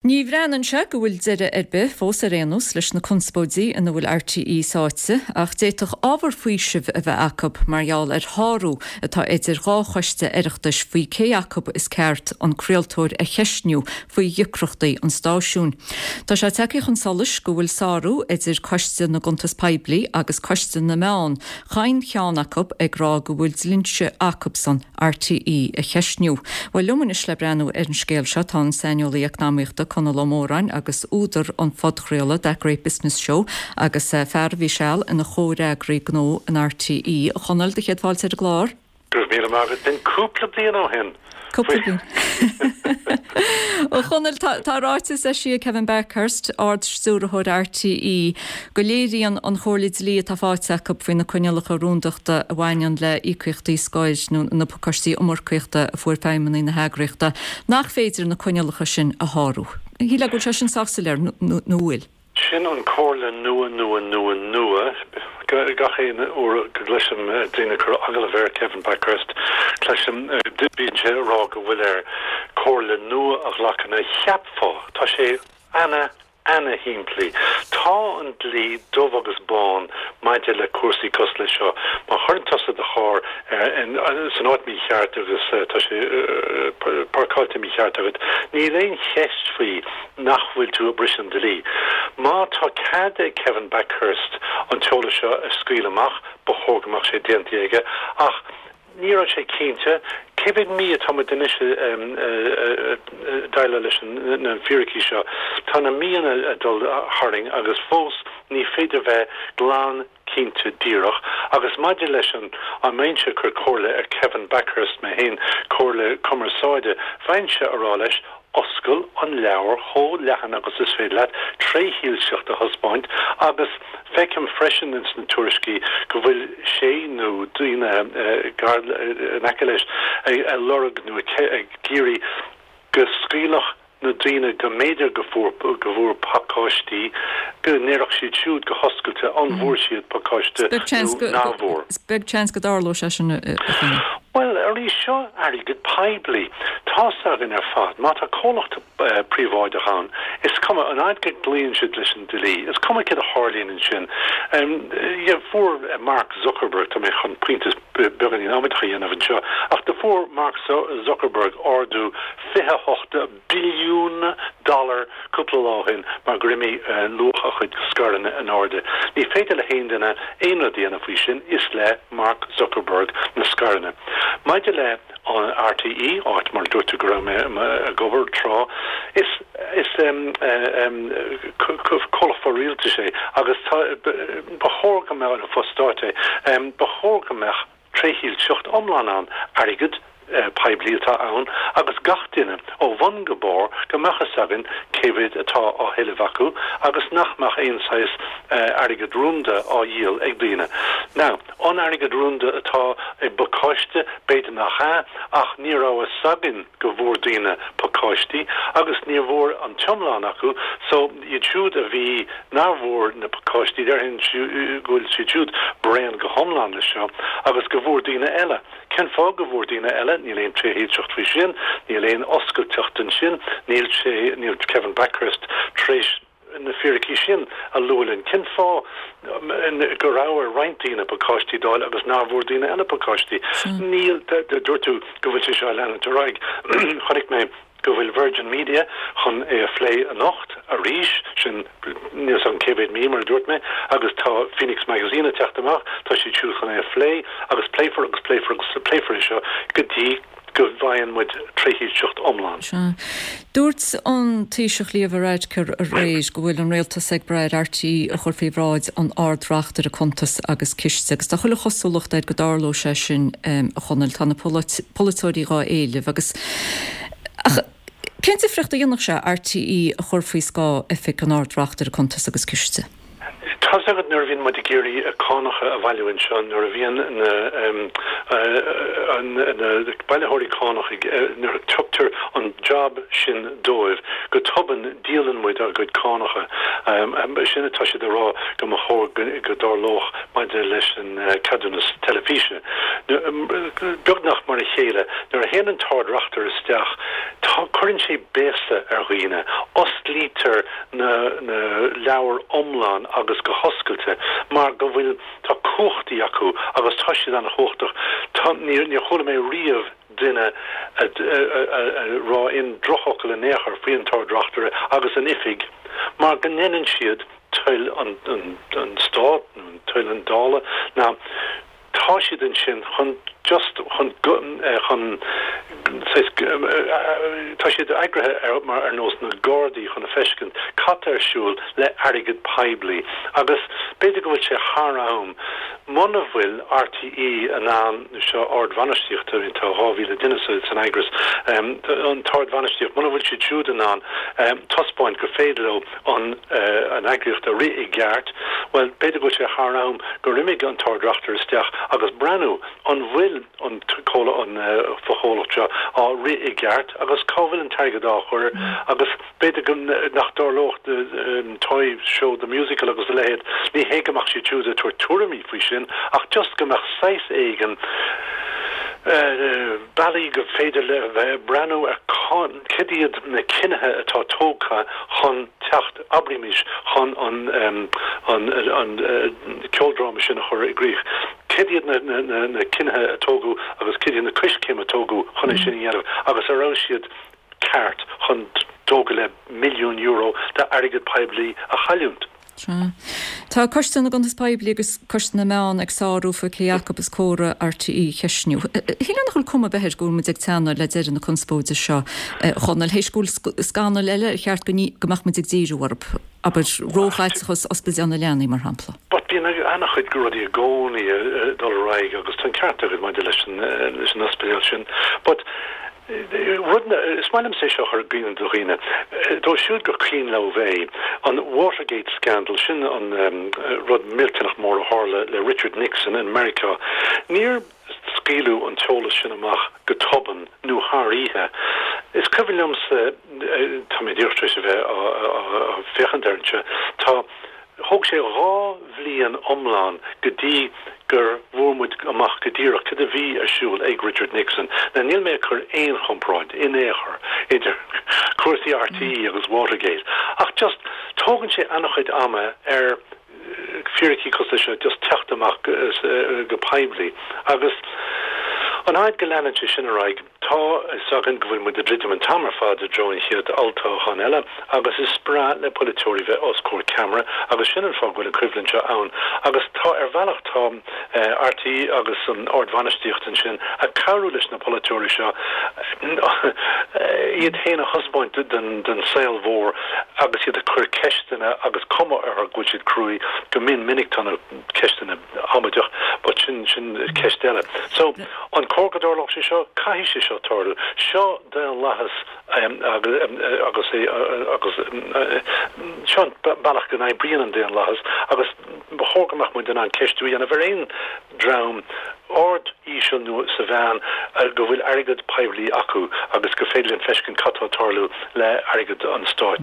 Ní bhreathnaíonn sé go bhfuil deireadh ar bith, fós ar aon nós, leis na conspóidí ina bhfuil RTÉ sáite, ach d'fhéadfadh ábhar faoisimh a bheith acu mar gheall ar shárú atá idir dhá choiste Oireachtais faoi cé acu is ceart an craoltóir a cheistniú faoi dheacrachtaí an stáisiúin. Tá sé tagtha chun solais go bhfuil sárú idir Coiste na gCuntas Poiblí agus Coiste na Meán, chaon cheann acu ag rá go bhfuil dlínse acusan RTÉ a cheistniú. Bhuel, liom anois le breathnú ar an scéal seo tá an saineolaí eacnamaíochta Conall Ó Móráin agus údar an phodchraoladh That Great Business Show agus fear a bhí seal ina chomhfhreagraí gnó in RTÉ. A Chonaill, do chéad fáilte ar an gclár. Go raibh míle maith agat. B'in cúpla bliain ó shin. Cúpla bliain. A Chonaill, tá ráiteas eisithe ag Kevin Bakhurst, Ard-Stiúrthóir RTÉ, go léiríonn an chomhairle dlí atá faighte acu faoi na coinníollacha rúndachta a bhaineann le híocaíochtaí scoir nó na pacáistí iomarcaíochta a fuair feidhmeannaigh na heagraíochta, nach féidir na coinníollacha sin a shárú. Shílfeá go bhfuil sé sin sách soiléir, nó bhfuil? Sin an comhairle nua nua nua nua. Gach aon uair go gcloisim daoine ag cur agallamh ar Kevin Bakhurst, cloisim, bíonn sé ag rá go bhfuil air comhairle nua a ghlacadh. Now cheapfá, tá sé ana ana-shimplí. Tá an dlí dubh agus bán maidir le cúrsaí cosúil leis seo. Má chuireann tusa do charr san áit mícheart agus tá sé páirceáilte mícheart agat, níl aon cheist faoi nach bhfuil tú ag briseadh an dlí. Má tá cead ag Kevin Bakhurst an t-eolas seo a scaoileadh amach, ba chóir go mbeadh sé déanta aige. Ach ní raibh sé cinnte. Cé mhéad mí atá muid anois ag déileáil leis na fíricí seo? Tá na míonna ag dul tharainn agus fós ní féidir bheith glan cinnte díreach. Agus maidir leis an, an mbeinnse ag cur comhairle ar Kevin Bakhurst mé féin, comhairle cumarsáide, bheinnse a rá leis, Oscail an leabhar chomh leathan agus is féidir leat, trédhearcacht a thaispeáint agus feicim freisin ins na tuairiscí go bhfuil sé nó daoine gar in aice leis ag lorg nó ag iarraidh go scaoilfeadh na daoine go mb'fhéidir go fuair go bhfuair pacáistí go ndéarfadh siad siúd go hoscailte an bhfuair siad pacáiste nó nach bhfuair. Is beag seans go dtarlóidh sé sin, a Chonaill. Bhuel, arís, seo airgead poiblí. Tá's againn ar fad, má tá comhlacht príobháideach ann, is cuma, an fhaid go gcloíonn siad leis an dlí, is cuma céard a tharlaíonn ansin. Fuair Mark Zuckerberg, tá mé chun pointe beagáinín amaideach a dhéanamh anseo, ach do fuair Mark Zuckerberg ardú 28 billiún dollar cúpla lá ó shin mar gur imigh luach a chuid scaireanna in airde. Ní féidir le haon duine aon rud a dhéanamh faoi sin, is le Mark Zuckerberg na scaireanna. Maidir le an RTÉ, áit mar a dúirt tú go raibh mé ag obair tráth, is is comhlacht fo-rialtais é agus tá ba chóir go mbeadh, nó fo-stáit é, ba chóir go mbeadh trédhearcacht iomlán ann, airgead poiblí atá ann agus gach duine, ó bhun go barr, go mbeadh fhios againn cé mhéad atá á thuilleamh acu agus nach mbeadh aon saghas airgead rúnda á dhíol ag daoine. Now, an airgead rúnda atá i bpacáiste, b'fhéidir nach ea, ach ní raibh fhios againn go bhfuair daoine pacáistí agus ní bhfuair an t-iomlán acu so iad siúd a bhí, nár bhfuair na pacáistí, déarfainn go bhfuil siad siúd bréan go hiomlán leis seo agus go bhfuair daoine eile. Cén fáth go bhfuair daoine eile? Níl aon trédhearcacht faoi sin, níl aon oscailteacht ansin, níl sé, níl Kevin Bakhurst tar éis na fíricí sin a lua linn. Cén fáth go raibh ar roinnt daoine pacáistí d'fháil agus nár bhfuair daoine eile pacáistí? Níl, dúirt tú go bhfuil sé seo ag leanúint ar aghaidh. Chonaic mé go bhfuil Virgin Media chun é a phlé anocht arís, sin níl 's agam cé mhéad mí mar a dúirt mé, agus tá Phoenix Magazine ag teacht amach, tá siad siúd chun é a phlé agus pléifear agus pléifear agus pléifear é seo go dtí go bhfaigheann muid trédhearcacht iomlán. Sea. Dúirt an Taoiseach Leo Varadkar aréir go bhfuil an rialtas ag brath ar RTÉ a chur faoi bhráid an Ard-Reachtaire Cuntas agus Ciste agus tá chuile chosúlacht air go dtarlóidh sé sin, a Chonaill. Tá na polaiteoirí dhá éileamh agus Ach cén difríocht a dhéanfadh sé RTÉ a chur faoi scáth Oifig an Ard-Reachtaire Cuntas agus Ciste? Tá's agat nuair a bhíonn muid ag iarraidh cánacha a bhailiú anseo, nuair a bhíonn na na bailitheoirí cánach ag, nuair a tugtar an job sin dóibh, go tobann díolann muid ár gcuid cánacha. Sin atá siad a rá go mba chóir go dtarlódh maidir leis an ceadúnas teilifíse. Beagnach mar a chéile, nuair a théann an tArd-Reachtaire isteach, tá, cuireann sé béasa ar dhaoine, osclaítear na leabhair iomlán agus go hoscailte mar go bhfuil, tá cumhachtaí acu agus tá siad an-chumhachtach. Tá, níor, níor chuala mé riamh duine a rá aon drochfhocal in aon chor faoi an tArd-Reachtaire agus an oifig mar go ndeineann siad toil an, an, an Stát nó toil an Dála ná Tá siad ansin chun just chun chun saghas tá siad eagraithe ar mar ar nós na Gardaí chun a feiscint cad tá ar siúl le airgead poiblí agus b'fhéidir go bhfuil sé thar am muna bhfuil RTÉ in ann seo ardbhainistíocht I mean tá 2,000 duine sa san eagras an t-ardbhainistíocht muna bhfuil siad siúd in ann taispeáint gur féidir leo an an eagraíocht a rith i gceart, bhuel, b'fhéidir go bhfuil sé thar am gur imigh an tArd-Reachtaire isteach agus breathnú an bhfuil an an fochomhlacht seo á rith i gceart agus cá bhfuil an t-airgead á chur agus b'fhéidir go nach dtarlódh Toy Show the Musical agus a leithéid, ní hé go mbeadh siad siúd ag tabhairt tuairimí faoi sin ach just go mbeadh saghas éigin bealaí go féidir le bheith breathnú ar Cad iad na cinnithe atá tógtha chun teacht, abraímis, chun an an ceoldráma sin a chur i gcrích? Cad iad na cinnithe a tógadh agus cad iad na coiscéim a tógadh chun é sin a dhéanamh agus an raibh siad ceart chun €2.5 milliún d'airgead poiblí a chailliúint? Sea. Tá Coiste na gCuntas Poiblí agus Coiste na Meán ag sárú faoi cé acu is córa RTÉ a cheistniú. Shílfeá nach bhfuil cuma ar bith air go bhfuil muid ag teannadh le deireadh na conspóide seo, a Chonaill, théis go bhfuil scannail eile ar cheart go mbeadh muid ag díriú orthu, abair, róchaiteachas Ospidéal na Leanaí, mar shampla. But bíonn an-chuid rudaí i gcónaí ag dul ar aghaidh agus tá an ceart agat maidir leis an ospidéal sin. But Rud, is maith liomsa é seo a chur i gcuimhne do dhaoine, dóibh siúd gur cuimhin leo é, an Watergate scandal, sin an rud millteanach mór a tharla le Richard Nixon in Meiriceá. Níor scaoileadh an t-eolas sin amach go tobann nó thar oíche. Is cuimhin liomsa, tá mé díreach tar éis a bheith á féachaint air anseo, tá, Thóg sé 2 bhliain iomlán go dtí gur bhfuair muid amach go díreach cad a bhí ar siúl ag Richard Nixon. Now níl mé ag cur aon chomparáid in aon chor idir cúrsaí RTÉ agus Watergate ach just tógann sé an-chuid ama ar fíricí cosúil leis seo just teacht amach go poiblí agus an fhaid go leanann sé sin ar aghaidh Tá a fhios againn go bhfuil muid ag druidim an t-am ar fad i dtreo an chéad olltoghchán eile agus is breá le polaiteoirí bheith os comhair ceamara agus sin an fáth go bhfuil an choimhlint seo ann agus tá ar bhealach tá RTÉ agus an ardbhainistíocht ansin ag cabhrú leis na polaiteoirí seo iad féin a thaispeáint don saol mhór agus iad ag cur ceisteanna agus cuma orthu go bhfuil siad cruaidh go mion minic tá na ceisteanna amaideach but sin sin ceist eile. So, an cóir go dtarlódh sé seo? Caithfidh sé seo tarlú. Seo daonlathas agus é agus seo an bealach go n-oibríonn an daonlathas agus ba chóir go mbeadh muid in ann ceistiú a dhéanamh ar aon dream, ard, íseal nó sa mheán, go bhfuil airgead poiblí acu agus gur féidir linn feiscint cad tá ag tarlú le airgead an stáit.